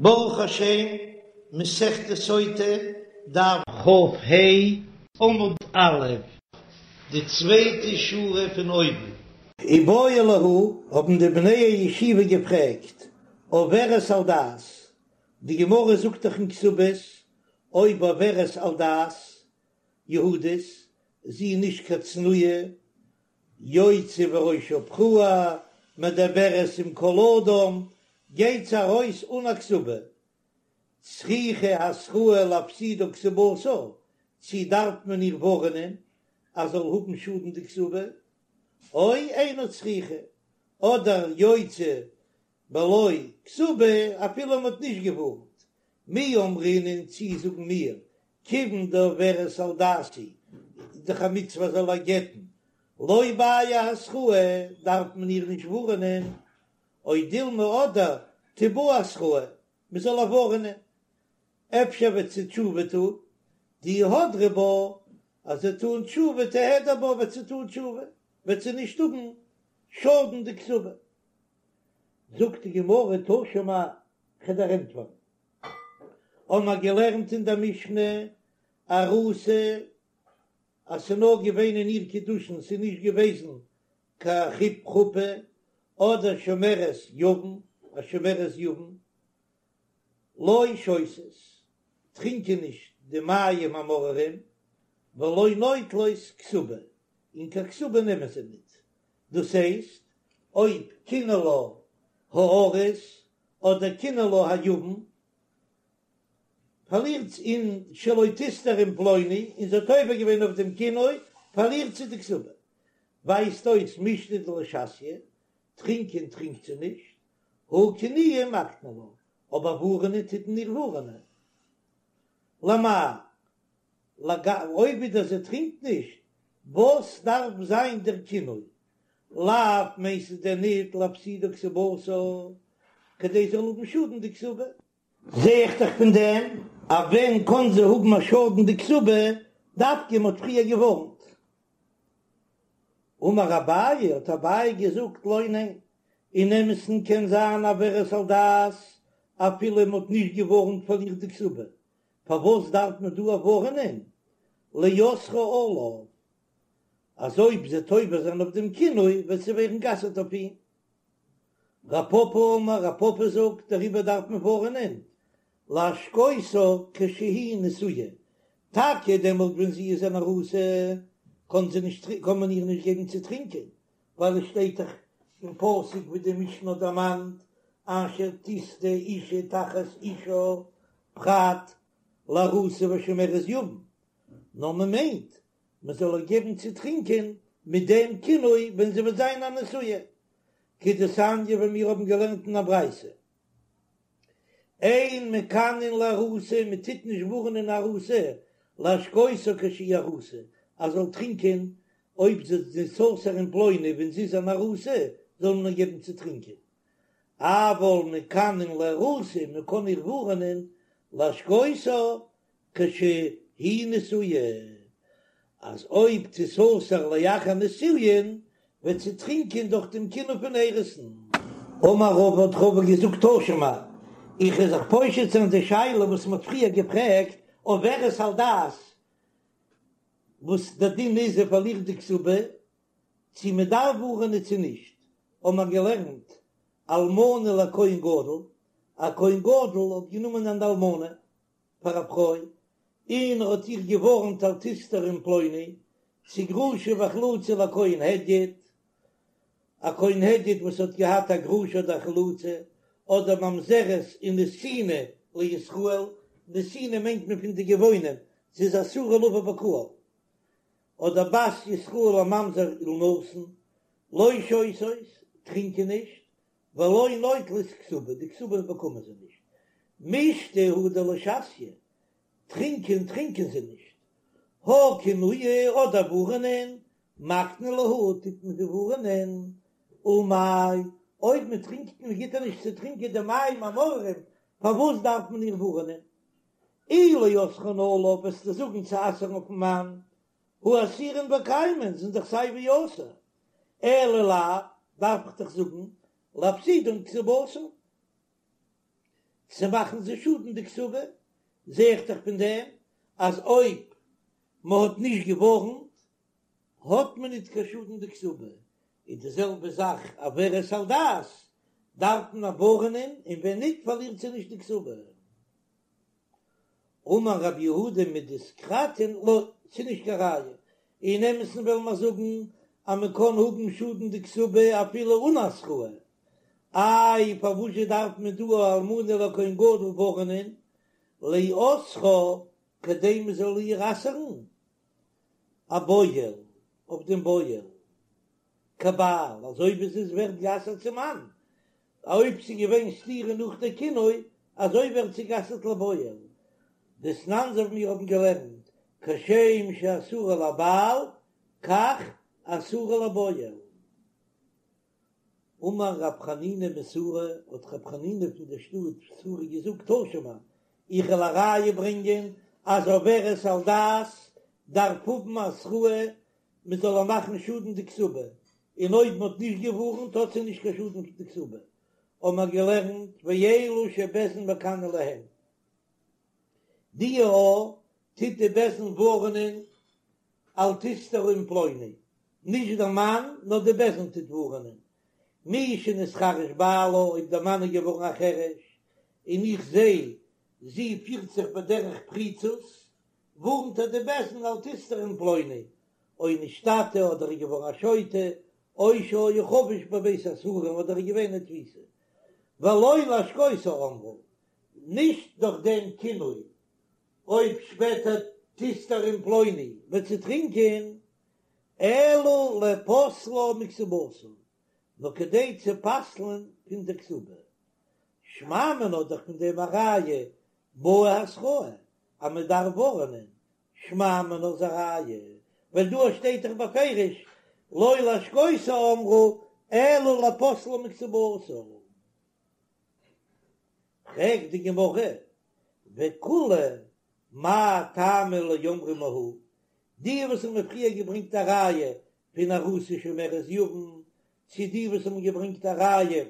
ברוך השם, מסכת סוטה, דף כ"ה, עמוד א', די צווייטע שורה פון אויבן. איבעיא להו, האבן די בני הישיבה געפרעגט, עוברת על דת, די גמרא זאגט דאך אין כתובות, אויב עוברת על דת יהודית, זי איז נישט קיין צנועה, יוצאה וראשה פרוע, מדברת עם כל אדם, גייט זי ארויס אן א כתובה. צריכה התראה להפסידה כתובתה, צי דארף מען איר ווארענען אז זאל האבן שאדן די כתובה, או אינה צריכה, אדער יוצאה בלא כתובה אפילו מען האט נישט געווארנט, מי אמרינן צי זאגן מיר כיוון דעוברת על דת היא, איז דאך א מצוה זאל איר גט'ן, לא בעיא התראה דארף מען איר נישט ווארענען, או דילמא אדער תיבעי התראה, מען זאל איר ווארענען, אפשר וועט זי תשובה טון, דאי הדרה בה, אז זי וועט טון תשובה תיהדר בה וועט זי טון תשובה, וועט זי נישט האבן שאדן די כתובה. זאגט די גמרא תא שמע, כ'וועל דיר ענטפערן. האבן מיר געלערנט אין דער משנה ארוסה אז ס'איז נאר געווען אין איר קידושין, ס'איז נישט געוועזן קיין חופה, אדער שומרת יבם, א שומרת יבם, לא שותות, טרינקען נישט די מים המאררים, ולא נוטלות כתובה, און קיין כתובה נעמען זיי ניט. דאס הייסט, אויב קינא לה הארוס אדער קינא לה היבם, פארלירט זי און שלא תסתר עם פלוני, און זי האט עובר געווען אויף דעם קינוי, פארלירט זי די כתובה. ווייזט אויס מישתא דלא שתיא, טרינקען טרינקט זי נישט, הא קנויי מקני לה, אבער ווארענען טוט מען איר ווארענען. למאי אויב ווידער זי טרינקט נישט, וואס דארף זיין דער קינוי? לאו מיינסטו דען ניט להפסידה כתובתה, כדי זי זאל האבן שאדן די כתובה? זע איך דאך פון דעם אז ווען קען זי האבן א שאדן די כתובה, דווקא מ'האט פריער געווארנט. אמר אביי, האט אביי געזאגט, לא ניין, אין אמת'ן קען זיין עוברת על דת אפילו מ'האט נישט געווארנט פארלירט די כתובה, פארוואס דארף מען דא ווארענען לאוסרה עליו אז אויב זי וועט עובר זיין אויף דעם קינוי וועט זי ווערן גע'אסר'ט אויף אים? רב פפא אמר, רב פפא זאגט, דעריבער דארף מען ווארענען להשקותה כשהיא נשואה, טאקע דעמאלט ווען זי איז אן ארוסה קען זי נישט קען מען איר נישט געבן צו טרינקען, ווייל עס שטייט דאך אין פסוק ווי די משנה האט דערמאנט אשר תשטה אשה תחת אישה פרט לארוסה ושומרת יבם, נאר מען מיינט מען זאל איר געבן צו טרינקען מיט דעם קינוי ווען זי וועט זיין א נשואה, כדתניא ווי מיר האבן געלערנט אין א ברייתא, אין מקנין לארוסה, מען טוט נישט ווארענען ארוסה, להשקותה כשהיא ארוסה, אז זאל טרינקען אויב זי תיסתר עם פלוני ווען זי איז אן ארוסה, זאל מען איר געבן צו טרינקען. אבל מקנין לארוסה, מען קען איר ווארענען להשקותה כשהיא נשואה, אז אויב תיסתר לאחר נישואין וועט זי טרינקען דורך דעם קינוי פון אירוסין. אמר רבא האט רבא געזאגט תא שמע, איך וועל זיך פושט זיין די שאלה וואס מען האט פריער געפרעגט עוברת על דת, וואס דער דין איז זי פארלירט די כתובה, צו מען דארף ווארענען צו נישט, האבן מיר געלערנט אלמנה לכהן גדול, א כהן גדול האט גענומען אן אלמנה פאר א פרוי, און ער האט איר געווארנט אל תסתרי עם פלוני, צו גרושה וחלוצה לכהן הדיוט, א כהן הדיוט וואס האט געהאט א גרושה אדער א חלוצה, אדער ממזרת ונתינה לישראל, נתינה מיינט מען פון די גבעונים, זי איז אסורה לבא בקהל, אדער בת ישראל לממזר ולנתין, לא שותות, טרינקען נישט, ולא נוטלות כתובה, די כתובה באקומען זיי נישט. מישתא הוא דלא שתיא, טרינקען טרינקען זיי נישט. הא קנויי אדער ווארענען, מקני להו טוט מען זיי ווארענען. ולמאי, אויב מען טרינקט מען גיט איר נישט צו טרינקען די מים המאררים, פארוואס דארף מען איר ווארענען? אי לאוסרן עליו וועסטו זאגן צו אסר'ן אויפן מאן, הא אסירן וקיימן זענען דאך סיי ווי אסור, אלא לאו, דארף איך דאך זאגן, להפסידן כתובתן. צו מאכן זי שאדן די כתובה, זע איך דאך פון דעם אז אויב מען האט נישט געווארנט האט מען ניט קיין שאדן די כתובה, און די זעלבע זאך עוברת על דת דארף מען ווארענען און ווען ניט פארלירט זי נישט די כתובה. אמר רב יהודה מדיסקרתין לא, ס'איז נישט קיין ראיה, אין אמת'ן וועלן מיר זאגן אז מען קען האבן שאדן די כתובה אפילו אן התראה, איי פארוואזשע דארף מען דא א אלמנה לכהן גדול ווארענען לאוסרה כדי מען זאל איר אסר'ן אבועל אויף דעם בועל כבעל אזוי ווי זי ווערט גע'אסר'ט צום מאן, אויב ס'איז געווען סתירה נאך די קינוי, אזוי ווערט זי גע'אסר'ט לבועל. דתנן אזוי ווי מיר האבן געלערנט, כשם שאסורה לבעל כך אסורה לבועל. אמר רב חנינא מסורא, האט רב חנינא פון דער שטאט סורא געזאגט, תא שמע, איך וועל א ראיה ברענגען אז עוברת על דת דארף האבן התראה מען זאל איר מאכן שאדן די כתובה, און אויב מען האט נישט געווארנט האט זי נישט קיין שאדן פון די כתובה, האבן מיר געלערנט ואלו שבית דין מקנין להן, די א טוט די בית דין ווארענען אל תסתרי עם פלוני, נישט דער מאן נאר די בית דין טוט ווארענען, מי שנתחרש בעלה אויב דער מאן איז געווארן א חרש און איך זע זי פירט זיך בדרך פריצות, ווארנט איר די בית דין אל תסתרי עם פלוני, או נשתטה אדער איז געווארן א שוטה, או שהיה חבוש בבית האסורים אדער איז געווען אין תפיסה. ולא להשקותה אמרו, נישט דורך דעם קינוי, אויב שפעטער תסתרי עם פלוני וועט זי טרינקען, אלא לפוסלה מכתובתה, נאר כדי צו פסל'ן פון דער כתובה. שמע מינה דאך פון דעם א ראיה בעי התראה אז מען דארף ווארענען, שמע מינה איז א ראיה, ווייל דא שטייט דאך בפירוש לא להשקותה אמרו אלא לפוסלה מכתובתה. פרעגט די גמרא, וכולהו מאי טעמא לא אמרי מהא, די וואס האבן פריער געברענגט א ראיה פון ארוסה ושומרת יבם, צו די וואס האבן געברענגט א ראיה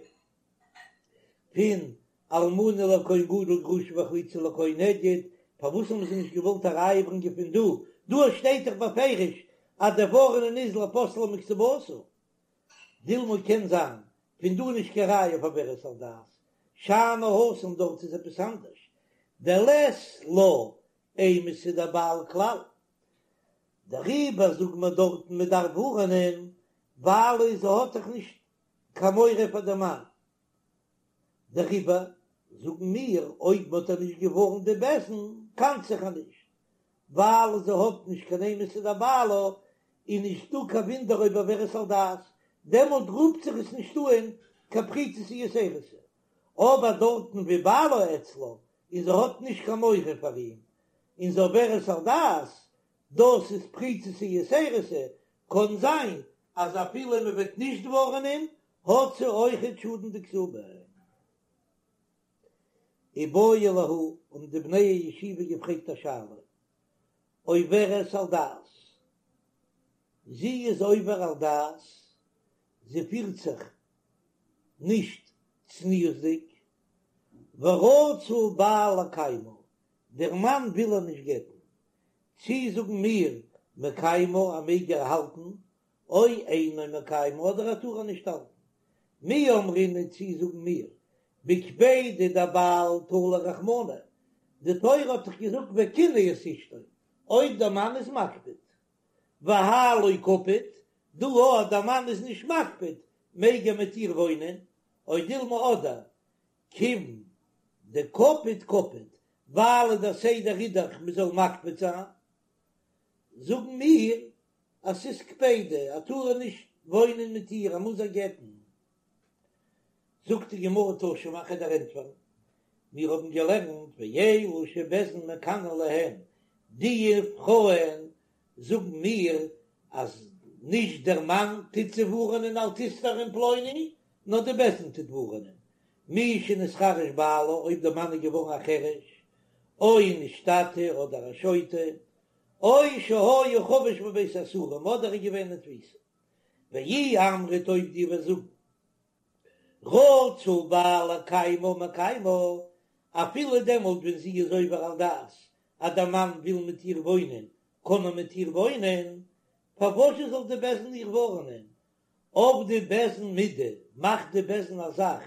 פון אלמנה לכהן גדול גרושה וחלוצה לכהן הדיוט, פארוואס האבן זיי נישט געוואלט א ראיה ברענגען פון דא? דא שטייט דאך בפירוש אז דער ווארענען איז לפוסלה מכתובתה. דילמא קען זיין פון דא נישט קיין ראיה אויף עוברת על דת, שאני התם דארט איז עפעס אנדערש, דלית לה אימתא דבעל כלל, דעריבער זאגט מען דארטן מען דארף ווארענען ווייל זי האט דאך נישט קיין מורא פאר דעם מאן, דעריבער זאגן מיר אויב מען האט איר נישט געווארנט די בית דין קאנט זיך איר נישט, ווייל זי האט נישט קיין אימתא דבעלה, איז נישט דא קיין וואונדער אויב עוברת על דת, דעמאלט רופט זיך עס נישט אן קיין פריצותא יתירתא, אבער דארטן ווי בעלה אצלה און זי האט נישט קיין מורא פאר אים, און זי עוברת על דת, דאס איז פריצותא יתירתא, קאן זיין אז אפילו מען וועט נישט ווארענען האט זי אויכעט שאדן די כתובה. איבעיא להו, האבן די בני הישיבה געפרעגט א שאלה, עוברת על דת, זי איז עובר על דת, זי פירט זיך נישט צניעות'דיג, ורצה בעל לקיימה, דער מאן וויל איר נישט גט'ן, צי זאגן מיר מקיימה ער מעג איר האלטן, או אינו מקיימה אדער ער טאר איר נישט האלטן. מי אמרינן צי זאגן מיר בקפידא דבעל תלי רחמנא, די תורה האט דאך געזאגט וקנא את אשתו, אויב דער מאן איז מקפיד, והאי לא קפיד, דא אז דער מאן איז נישט מקפיד מעג ער מיט איר וואוינען, או דילמא אדער כיוון דקפיד קפיד, ווייל דער סדר איז דאך מען זאל מקפיד זיין, זאגן מיר אז ס'איז קפידא, ער טאר נישט וואוינען מיט איר, ער מוז איר גט'ן. זאגט די גמרא תא שמע כ'וועל דיר ענטפערן, מיר האבן געלערנט ואלו שבית דין מקנין להן, די פרויען זאגן מיר אז נישט דער מאן טוט זיי ווארענען אל תסתרי עם פלוני, נאר די בית דין טוט ווארענען, מי שנתחרש בעלה, אויב דער מאן איז געווארן א חרש, או נשתטה אדער א שוטה, או שהיה חבוש בבית האסורים אדער איז געווען אין תפיסה. ואי אמרת אויב דו וועסט זאגן רצה בעל לקיימה מקיימה. אפילו דעמאלט ווען זי איז עובר על דת, אז דער מאן וויל מיט איר וואוינען, קען ער מיט איר וואוינען, פארוואס זאל די בית דין איר ווארענען? עבדי בית דין מידי, מאכט די בית דין א זאך,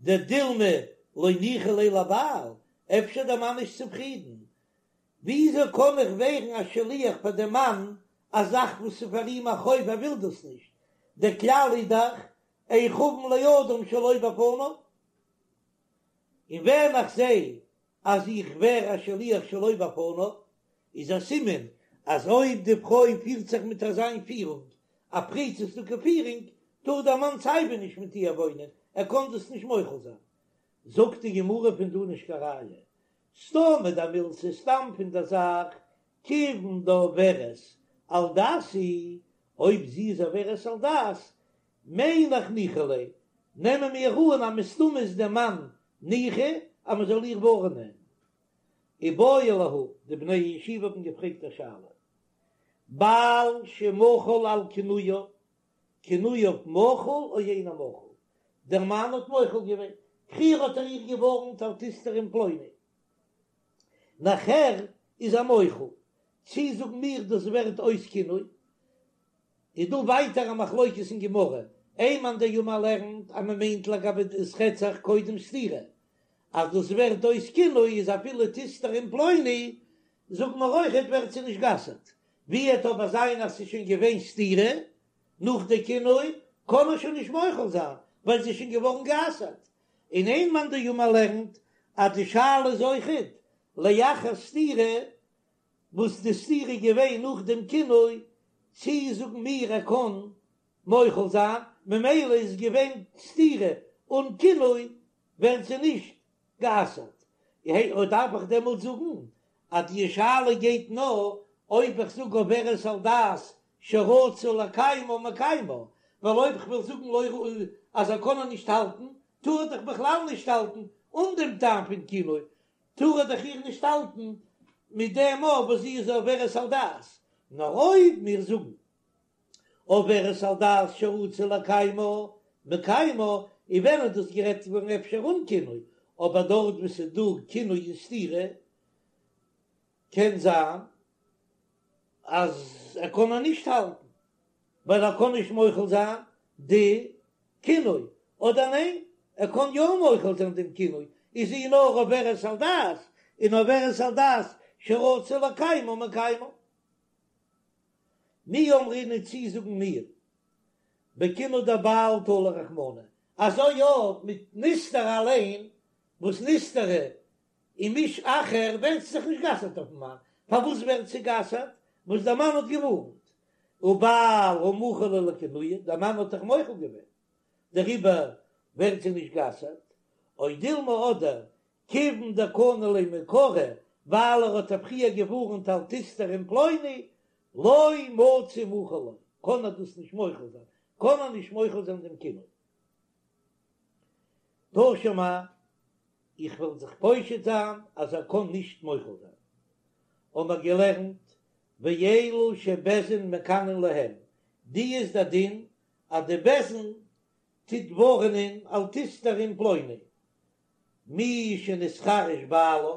דדילמא לא ניחא ליה לבעל, אפשר דער מאן נישט צופרידן, וויאזוי קען איך ווערן א שליח פאר דעם מאן א זאך וואס איז פאר אים א חוב ער וויל דאס נישט, דער כלל איז דאך אין חבין לאדם שלא בפניו, און ווען איך זע אז איך ווער א שליח שלא בפניו, איז א סימן אז אויב די פרוי פירט זיך מיט אזיין פירונג, א פריצות'דיגע פירונג, טאר דער מאן סייווי נישט מיט איר וואוינען, ער קען דאס נישט מוחל זיין. זאגט די גמרא פון דא נישט קיין ראיה, סתמא דמילתא סתם פון דער זאך, כיוון דעוברת על דת היא, אויב זי איז עוברת על דת, מיין איך ניחא ליה, נעמען מיר אן אז מסתמא איז דער מאן ניחא אז מען זאל איר ווארענען. איבעיא להו, די בני הישיבה האבן געפרעגט א שאלה, בעל שמחל על קינויה, קינויה מחול או אינו מחול, דער מאן האט מוחל געווען, פריער האט ער איר געווארנט אל תסתרי עם פלוני, נאכער איז ער מוחל, צי זאגן מיר דאס ווערט אויס קינוי, איז דא ווייטער א מחלוקת אין גמרא, איין מאן דאמר לערנט אז מען מיינט לגבי עס רעדט זיך קודם סתירה, אז דאס ווערט אויס קינוי איז אפילו תסתרי עם פלוני, זאגט מען אויכעט ווערט זי נישט גע'אסר'ט, ווי עט אבער זיין אז ס'איז שוין געווען סתירה נאך די קינוי, קען ער שוין נישט מוחל זיין ווייל זי איז שוין געווארן גע'אסר'ט, און איין מאן דאמר לערנט אז די שאלה איז אויכעט לאחר סתירה, וואס די סתירה איז געווען נאך דעם קינוי, צי זאגן מיר ער קען מוחל זיין, ממילא איז געווען סתירה אן קינוי ווערט זי נישט גע'אסר'ט, אויב דארף איך דעמאלט זאגן אז די שאלה גייט נאר אויב איך זאג עוברת על דת שרצה לקיימה מקיימה, ווייל אויב כ'וועל זאגן לא ראוי אז ער קען איר נישט האלטן, טאר ער דאך בכלל נישט האלטן אן דעם טעם פון קינוי, טאר ער דאך איר נישט האלטן מיט דעם אויך וואס זי איז עוברת על דת, נאר אויב מיר זאגן עוברת על דת שרצה לקיימה מקיימה, און ווען איז דאס גערעדט געווארן אפשר אן קינוי, אבער דארט וואו ס'איז דא קינוי און סתירה קען זיין אז ער קען איר נישט האלטן ווייל ער קען נישט מוחל זיין די קינוי, אדער ניין ער קען יא מוחל זיין דעם קינוי, איז זי נאר עוברת על דת, און עוברת על דת שרצה לקיימה מקיימה. מי אמרינן צי זאגן מיר בקינוי דבעל תלי רחמנא, אזוי יא מיט נסתרה אליין, וואס נסתרה עם איש אחר ווערט זי דאך נישט גע'אסר'ט אויפן מאן, פארוואס ווערט זי גע'אסר'ט? וואס דער מאן האט געווארנט, ובעל הא מחל ליה לקינויה, דער מאן האט דאך מוחל געווען, דעריבער ווערט זי נישט גע'אסר'ט, או דילמא אדער כיוון דקני ליה מעיקרא, ווייל ער האט איר פריער געווארנט אל תסתרי עם פלוני, לא מצי מחיל לה, קען ער דאס נישט מוחל זיין, קען ער נישט מוחל זיין דעם קינוי. תא שמע, איך וועל זיך פושט זיין אז ער קען נישט מוחל זיין. האבן מיר געלערנט, ואלו שבית דין מקנין להם, די איז דער דין אז די בית דין טוט ווארענען אל תסתרי עם פלוני, מי שנתחרש בעלה,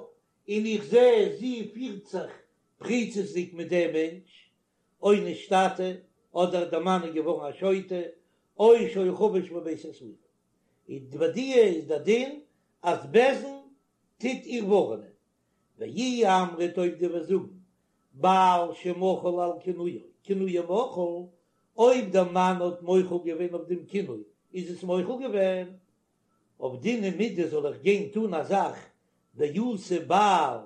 און איך זע זי פירט זיך פריצות'דיג מיט דעם מענטש, או נשתטה, אדער דער מאן איז געווארן א שוטה, או שהיה חבוש בבית האסורין. איז ביי די איז דער דין אז בית דין טוט איר ווארענען. ואי אמרת אויב דו וועסט זאגן בעל שמחל על קינויו, קינויו מחול, אויב דער מאן האט מוחל געווען אויף דעם קינוי איז עס מוחל געווען, עבדינן מידי זאל איך גיין טון א זאך דאתי בעל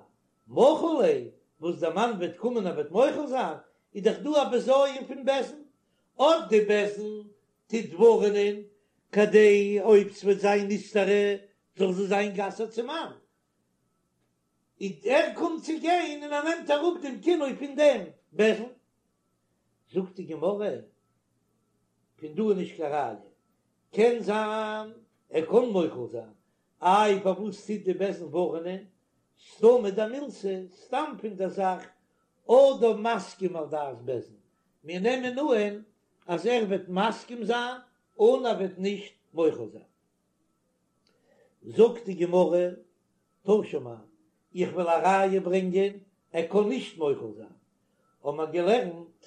מחיל ליה, וואס דער מאן וועט קומען ער וועט מוחל זיין, איז דאך דא א בזיון פון בית דין, אט די בית דין טוט ווארענען כדי אויב ס'וועט זיין נסתרה זאל זי זיין גע'אסר'ט צום מאן, און ער קומט צו גיין און ער נעמט אראפ דעם קינוי פון דעם בית דין. זאגט די גמרא, פון דא איז נישט קיין ראיה, קען זיין ער קען מוחל זיין, איי פארוואס טוט די בית דין ווארענען, סתמא דמילתא, סתם פון דער זאך, אדם מסכים על דעת בית דין, מיר נעמען אהן אז ער וועט מסכים זיין און ער וועט נישט מוחל זיין. זאגט די גמרא, תא תא שמע, איך וועל א ראיה ברענגען, ער קען נישט מוחל זיין. האבן מיר געלערנט,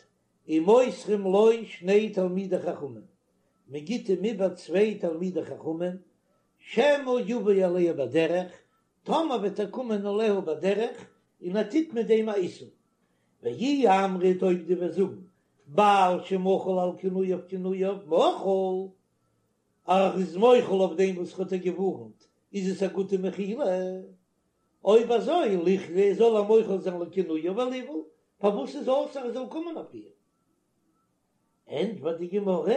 ומוסרים לו שני תלמידי חכמים, מען גיט אים איבער צוויי תלמידי חכמים, שמא יבא עליה בדרך, טאמער וועט ער קומען עליה בדרך, און ער טוט מיט דעם א איסור. ואי אמרת אויב דו וועסט זאגן, בעל שמחל על קינויו קינויו מחול, ער איז מוחל אויף דעם וואס האט איר געווארנט, איז עס א גוטע מחילה? אויב אזוי ליחלי זאל ער מוחל זיין לקינויה וליבעול, פארוואס איז אסור ער זאל קומען אויף איר? ענטפערט די גמרא,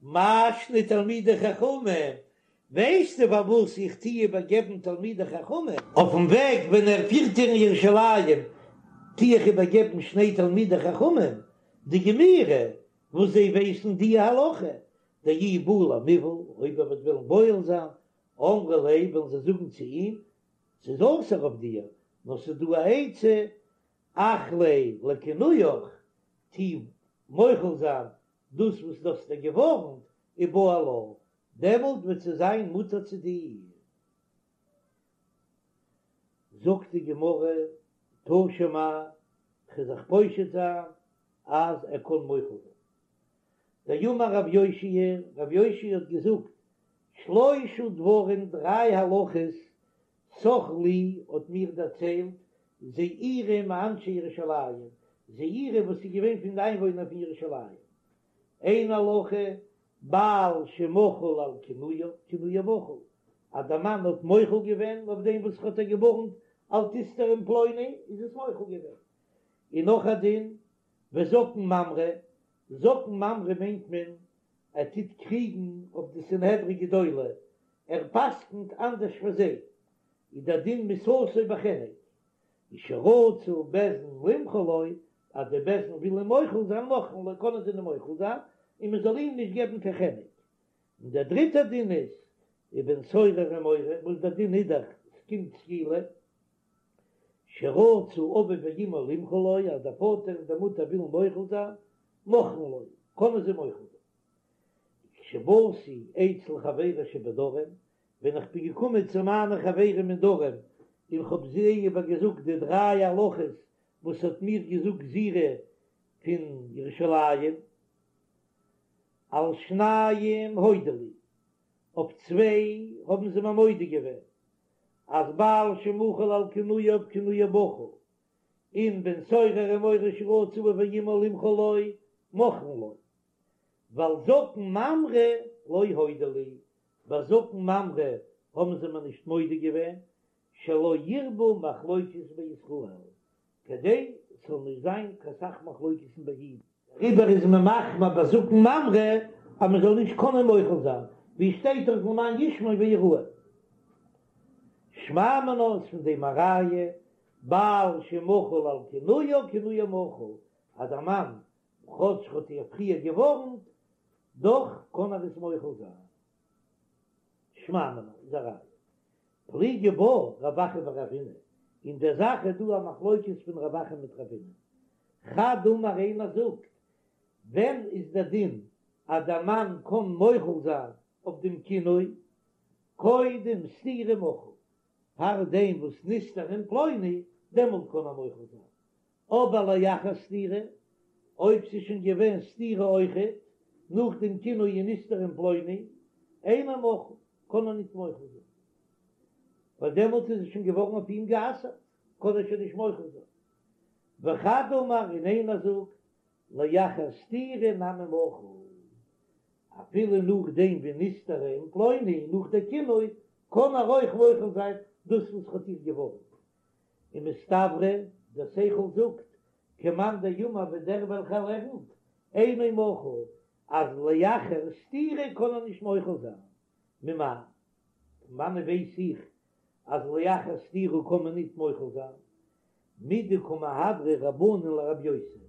מאי שנא תלמידי חכמים, ווייסטו פארוואס איך טוה איבערגעבן תלמידי חכמים? אויפן וועג ווען ער פירט איר אין ירושלים טוה איך איבערגעבן שני תלמידי חכמים דגמירי וואס זיי ווייסן די הלכה, דאי בעי למיבעל, אויב ער וועט וועלן בועל זיין, אמרי ליה וועלן זיי זאגן צו אים, ס'איז אסור אויף דיר, נאר ס'איז דא א עצה, אחליה לקינויך, טו מוחל זיין דאס וואס דו האסט איר געווארנט, ובעל לה, דעמאלט וועט זי זיין מותר צו דיר. זאגט די גמרא, תא שמע, כ'וועל זיך פושט זיין אז ער קען מוחל זיין. דאמר רב יאשיה, רב יאשיה האט געזאגט, שלשה דברים דריי הלכות סח לי האט מיר דערציילט זעירי מאנשי ירושלים, זעירי וואס איז געווען פון די איינוואוינער פון ירושלים, איין הלכה, בעל שמחל על קינויה, קינויה מחול, אז דער מאן האט מוחל געווען אויף דעם וואס האט איר געווארנט אל תסתרי עם פלוני, איז עס מוחל געווען. און נאך א דין, וזקן ממרא, זקן ממרא מיינט מען ער טוט קריגן אויף די סנהדרין גדולה, ער פסק'נט אנדערש פון זיי, איז דער דין מיתתו בחנק, ושרצו בית דין למחול לו, אז די בית דין וויל אים מוחל זיין מוחלין לו, קענען זיי אים מוחל זיין, און מען זאל אים נישט געבן קיין חנק. און דער דריטער דין איז, ובן סורר ומורה, וואס דער דין איז דאך, ס'קומט סקילה, שרצו אביו ואמו למחול לו, אז דער פאטער און די מוטער ווילן מוחל זיין, מוחלין לו, קענען זיי מוחל זיין. כשבאתי אצל חברי שבדרום, ווען איך בין געקומען צו מיינע חברים אין דרום, און כ'האב זיי איבערגעזאגט די דריי הלכות וואס האט מיר געזאגט זעירי פון ירושלים, על שניים הודו לי, אויף צוויי האבן זיי מיר מודה געווען, אז בעל שמחל על קינויו קינויו מחול, און בן סורר ומורה שרצו אביו ואמו למחול לו מוחלין לו, ועל זקן ממרא לא הודו לי, ביי זקן ממרא האבן זיי מיר נישט מודה געווען, שלא ירבו מחלוקת בישראל, כדי ס'זאל נישט זיין קיין סך מחלוקת'ן ביי אידן. דעריבער איז מען מחמיר ביי זקן ממרא אז מען זאל נישט קענען מוחל זיין, ווי שטייט דאך למען ישמעו ויראו. שמע מינה איז פון דעם א ראיה, בעל שמחל על קינויה קינויה מחול, אז א מאן כאטש האט איר פריער געווארנט, דאך קען ער עס מוחל זיין. שמע מינה איז א ראיה. פליגי בה רב אחא ורבינא, אין דער זאך איז דא א מחלוקת פון רב אחא מיט רבינא. חד אמר איינער זאגט, ווען איז דער דין אז דער מאן קען מוחל זיין אויף דעם קינוי, קודם סתירה מחול, פאר דעם וואס נסתרה עם פלוני, דעמאלט קען ער מוחל זיין, אבער לאחר סתירה, אויב ס'איז שוין געווען סתירה אויכעט, נאך דעם קינוי און נסתרה עם פלוני, אינו מחול, קען ער ניט מוחל זיין, ווייל דעמאלט איז עס שוין געווארן אויף אים גע'אסר'ט, קען ער שוין נישט מוחל זיין. וחד אמר, און איינער זאגט, לאחר סתירה נמי מחול, אפילו נאכדעם ווי נסתרה עם פלוני, נאך דער קינוי, קען ער אויך מוחל זיין דאס וואס האט איר געווארנט. ומסתברא, דער שכל זאגט, כמאן דאמר ווי דער וועלכער לערנט, אינו מחול, אז לאחר סתירה קען ער נישט מוחל זיין. ממאי? פון וואנען ווייס איך אז לאחר סתירה קען מען ניט מוחל זיין? מדקא מהדרי רבנן לרבי יוסי,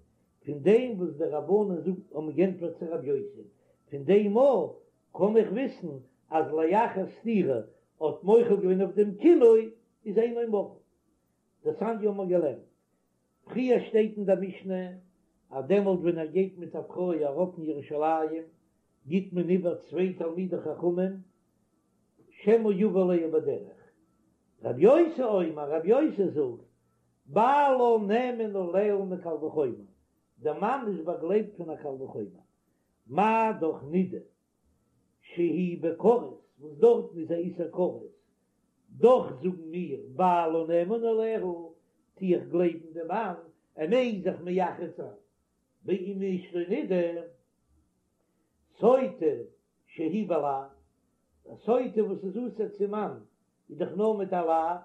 פון דעם וואס די רבנן זאגן האבן גענטפערט צו רבי יוסי, פון דעם אויך קען איך וויסן אז לאחר סתירה האט מוחל געווען אויף דעם קינוי איז אינו מחול. דתניא האבן מיר געלערנט פריער שטייט אין דער משנה אז דעמאלט ווען ער גייט מיט א פרוי ארויף אין ירושלים גיט מען איבער צוויי תלמידי חכמים שמא יבא עליה בדרך. רב יוסי אומר, רב יוסי זאגט, בעלה נאמן עליה מקל וחומר, דער מאן איז באגלייבט פון א קל וחומר, מה דאך נידה שהיא בכרת, וואס דארטן איז א איסור כרת, דאך זאגן מיר בעלה נאמן עליה, טו איך גלייבן דעם מאן, ער מעג זיך מייחד זיין עם אשתו נידה, סוטה שהיא בלאו, א סוטה וואס איז אסור צום מאן איז דאך נאר מיט א לאו,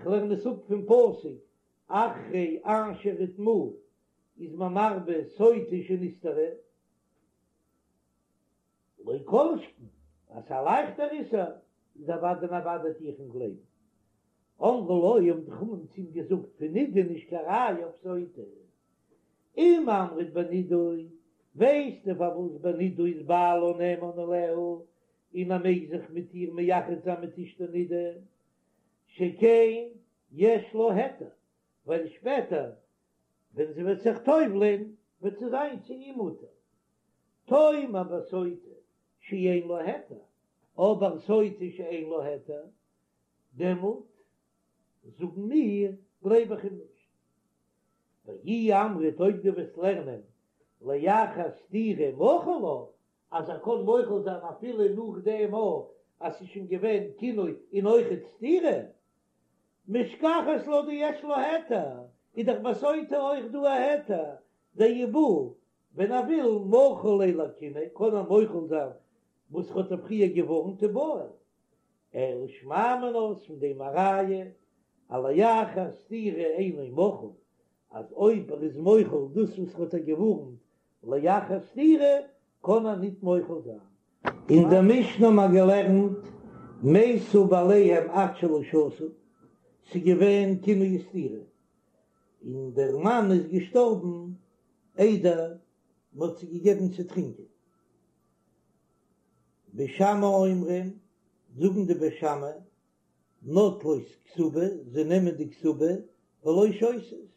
כ'לערן עס אפ פון פסוק אחרי אשר הוטמאה איז מען מרבה סוטה שנסתרה, לא כל שכן אז ס'איז א לייכטער איסור איז אוודאי און אוודאי טו איך אים גלייבן. אמרו לו האבן די חכמים צו אים געזאגט פון נידה נישט קיין ראיה אויף סוטה. אם אמרת בנידוי, ווייסטו פארוואס בנידוי איז בעלה נאמן עליה און ער מעג זיך מיט איר מייחד זיין מיט אשתו נידה, שכן יש לה היתר, ווייל שפעטער ווען זי וועט זיך טובל'ען וועט זי זיין צו אים מותר. תאמר בסוטה שאין לה היתר, אבער סוטה שאין לה היתר, דעמאלט זאגן מיר גלייב איך אים נישט. ואי אמרת אויב דו וועסט לערנען לאחר סתירה מחיל לה, אז ער קען מוחל זיין אפילו נאך דעם אויך אז ס'איז שוין געווען קינוי און אויכעט סתירה, משכחת לה דיש לה היתר, איז דאך ביי סוטה אויך דא א היתר, דאי בעי ווען ער וויל מחיל ליה לקינוי קען ער מוחל זיין וואס ער האט איר פריער געווארנט ובועל. אלא שמע מינה איז פון דעם א ראיה אז לאחר סתירה אינו מחול, אז אויב ער איז מוחל דאס וואס ער האט איר געווארנט לאחר סתירה קען ער ניט מוחל זיין. אין דער משנה האט מען געלערנט מתו בעליהם עד שלא שתו, ס'איז געווען קינוי וסתירה, און דער מאן איז געשטארבן איידער מ'האט זיי געגעבן צו טרינקען. בית שמאי אומרים, זאגן די בית שמאי, נוטלות כתובה, זיי נעמען די כתובה, ולא שותות.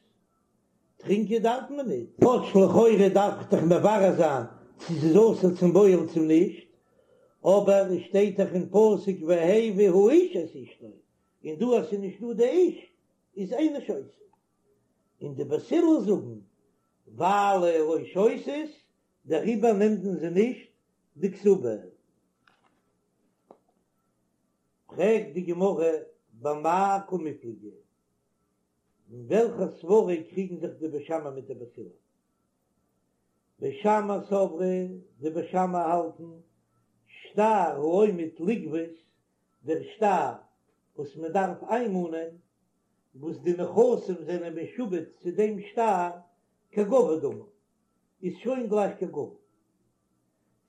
טרינקען דארף מען ניט. כאטש לכאורה דארף איך דאך מברר זיין צו ס'איז אסור צום בועל צו נישט, אבער עס שטייט דאך אין פסוק והביא האיש את אשתו, און דא אז ס'איז נישט דא די איש, איז אינה שותה. און די בית הלל זאגן, ווייל לא שותות, דעריבער נעמט מען זי נישט די כתובה. פרעגט די גמרא במאי קמיפלגי, אין וועלכע סברא קריגן זיך די בית שמאי מיט די בית הלל? בית שמאי סברי, די בית שמאי האלטן, שטר העומד לגבות, דער שטר וואס מען דארף איינמאנען, וואס די נכסים זענען משועבד צו דעם שטר, כגבוי דמי, איז שוין גלייך כגבוי.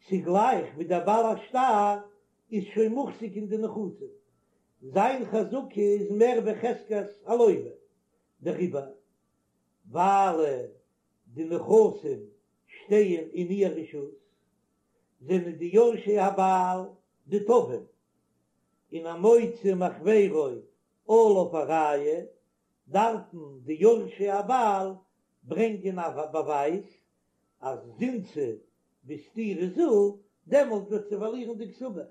ס'גלייך ווי דער בעל השטר איז שוין מוחזק אין די נכסים, זיין חזקה איז מער ווי חזקת הלוה, דעריבער ווייל די נכסים שטייען אין איר רשות, זענען די יורשי הבעל די תובעים, און המוציא מחבירו עליו הראיה, דארפן די יורשי הבעל ברענגען א באווייז אז זינתה בסתירה זו, דעמאלט וועט זי פארלירן די כתובה,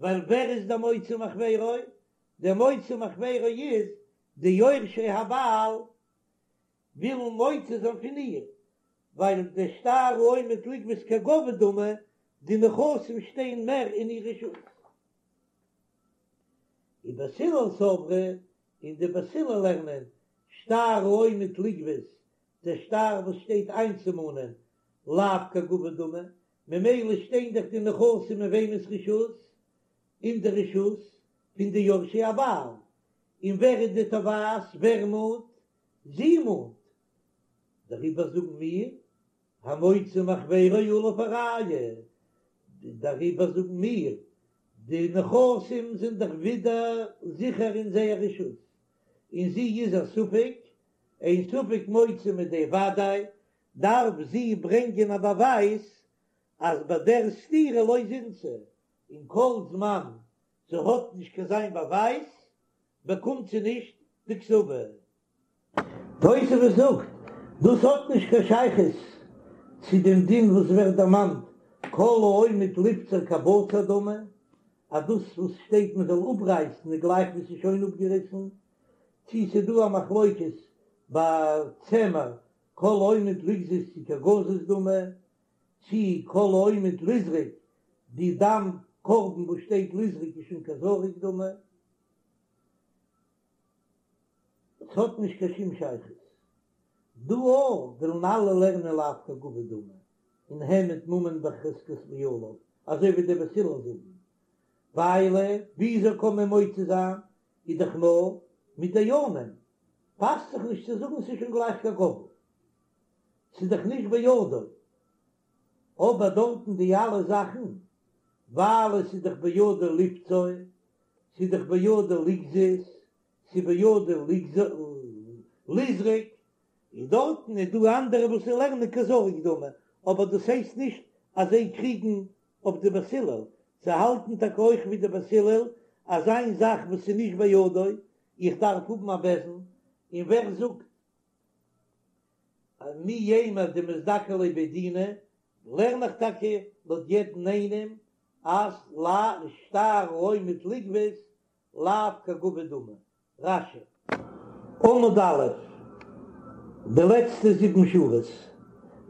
ווייל ווער איז דער מוציא מחבירו? דער מוציא מחבירו איז די יורשי הבעל ווילן מוציא זיין פון איר, ווייל דער שטר העומד לגבות כגבוי דמי, די נכסים שטייען מער אין איר רשות. ובית הלל סברי, און די בית הלל לערנען, שטר העומד לגבות, דער שטר וואס שטייט איינצומאנען, לאו כגבוי דמי, ממילא שטיין דאך די נכסים אין וועמענס רשות? אין די רשות פון די יורשי הבעל, און ווער איז די תובעת? ווער מאנט? זי מאנט. דעריבער זאגן מיר, המוציא מחבירו עליו הראיה, דעריבער זאגן מיר, די נכסים זענען דאך ווידער זיכער אין זייער רשות, און זי איז א ספק, אין ספק מוציא מידי וודאי, דארף זי ברענגען א באווייז אז ביי דער סתירה לא זינתה, און כל זמן זי האט נישט קיין אזוין באווייז באקומט זי נישט די כתובה. תוספות זאגט, דאס האט נישט קיין שייכות צו דעם דין וואס ווערט דערמאנט כל העומד ליבצר כבצר דמי. אז דאס וואס שטייט מען זאל אפרייסן איז גלייך ווי ס'איז שוין אפגעריסן, צי ס'איז דא א מחלוקת ביי צמר כל העומד לגזוז צי כגזוז דמי, צי כל העומד לזרוק די דם קרבן וואס שטייט לזרוק איז שוין כזרוק דמי. ס'האט נישט קיין שום שייכות. דא אויך ווילן אלע לערנען לאו כגבוי דמי און העמד ממון בחזקת בעליו, אזוי ווי די בית הלל זאגן, ווייל וויאזוי קען מען מוציא זיין איז דאך נאר מיט דיינים, פאסט זיך נישט צו זאגן ס'איז שוין גלייך כגבוי, ס'איז דאך נישט בידו, אבער דארטן די אלע זאכן ווייל עס איז דאך בידו לפצוע, ס'איז דאך בידו לגזוז, ס'איז בידו לזרוק, און דארטן איז דא אנדערע וואס לערנען כזרוק דמי, אבער דאס הייסט נישט אז זיי קריגן אויף די בית הלל, זיי האלטן טאקע אויך ווי די בית הלל אז איין זאך וואס איז נישט בידו, איך דארף האבן א בית דין, און ווער זאגט מי יימר דמזדכי ליה בי דינא, לערן איך טאקע לויט יעדן איינעם אז לא שטר העומד לגבות לאו כגבוי דמי. רש"י. עמוד א', די לעצטע זיבן שורות,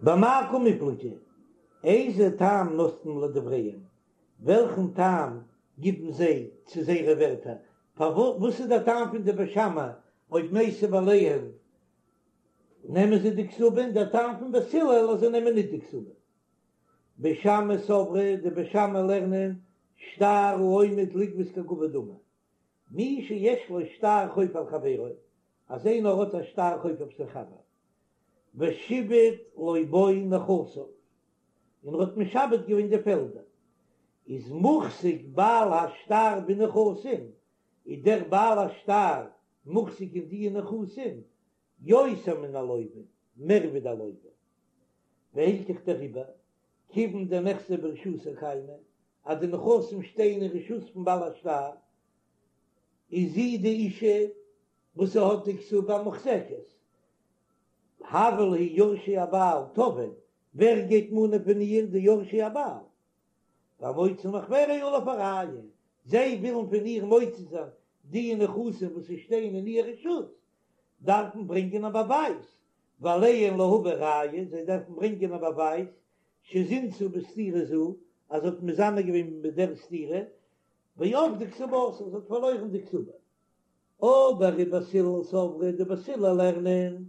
במאי קמיפלגי, איזה טעם נותנים לדבריהם, וועלכן טעם גיבן זיי צו זייערע ווערטער, פארוואס איז דער טעם פון די בית שמאי אויב מתו בעליהן נעמען זיי די כתובה און דער טעם פון בית הלל אז זיי נעמען ניט די כתובה. בית שמאי סברי, די בית שמאי לערנען שטר העומד לגבות כגבוי דמי. מי שיש לו שטר חוב על חברו, אז איינער האט א שטר חוב אויף זיין חבר, ושיעבד לו בו נכסיו, און ער האט משעבד געווען די פעלדער, איז מוחזק בעל השטר בנכסים, איז דער בעל השטר מוחזק אין די נכסים, יותר מן הלוה, מער ווי דער לוה. והילכך דעריבער, כיוון דנכסי ברשותיה קיימי, אז די נכסים שטייען אין רשות פון בעל השטר, איז זי די אישה וואס זי האט די כתובה מוחזקת. הוו להו יורשי הבעל תובעין, ווער גייט מאנען פון איר? די יורשי הבעל. והמוציא מחבירו עליו הראיה, זיי ווילן פון איר מוציא זיין די נכסים וואס שטייען אין איר רשות, דארפן ברענגען א באווייז, ועליהן להביא ראיה, זיי דארפן ברענגען א באווייז, שזינתה בסתירה זו, אז זי האט מזנה געווען מיט דער סתירה, ואבדה כתובתה, זי האט פארלוירן די כתובה. אבער ובית הלל סברי, די בית הלל לערנען,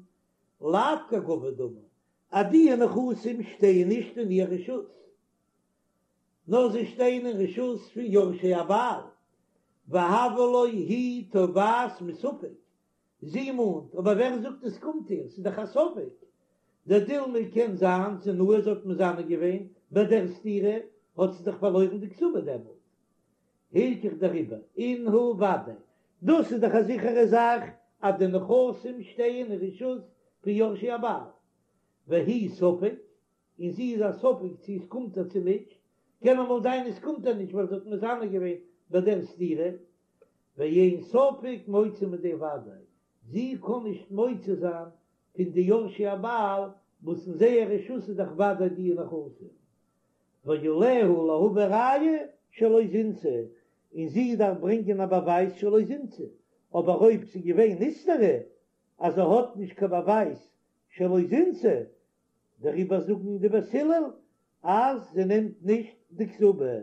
לאו כגבוי דמי, אז די נכסים שטייען נישט אין איר רשות, נאר זיי שטייען אין רשות פון יורשי הבעל, והויא לה היא תובעת מספק, זי מאנט, אבער ווער זאגט עס קומט איר, ס'איז דאך א ספק, דדילמא קען זיין זינאי זי האט מזנה געווען ביי דער סתירה, האט זי דאך פארלוירן די כתובה דעמאלט. הילכך דעריבער, אינהו ודאי, דאס איז דאך א זיכערע זאך אז די נכסים שטייען אין רשות פון יורשי הבעל, והיא ספק, און זי איז א ספק צו עס קומט איר צו נישט, קען אמאל זיין עס קומט איר נישט ווייל זי האט מזנה געווען ביי דער סתירה, ואין ספק מוציא מידי ודאי, זי קען נישט מוציא זיין פון די יורשי הבעל וואס אין זייער רשות איז דאך ודאי די נכסים, ועליה להביא ראיה שלא זינתה, און זי דארף ברענגען א באווייז שלא זינתה, אבער אויב ס'איז געווען נסתרה אז זי האט נישט קיין באווייז שלא זינתה, דעריבער זאגן די בית הלל אז זי נעמט נישט די כתובה.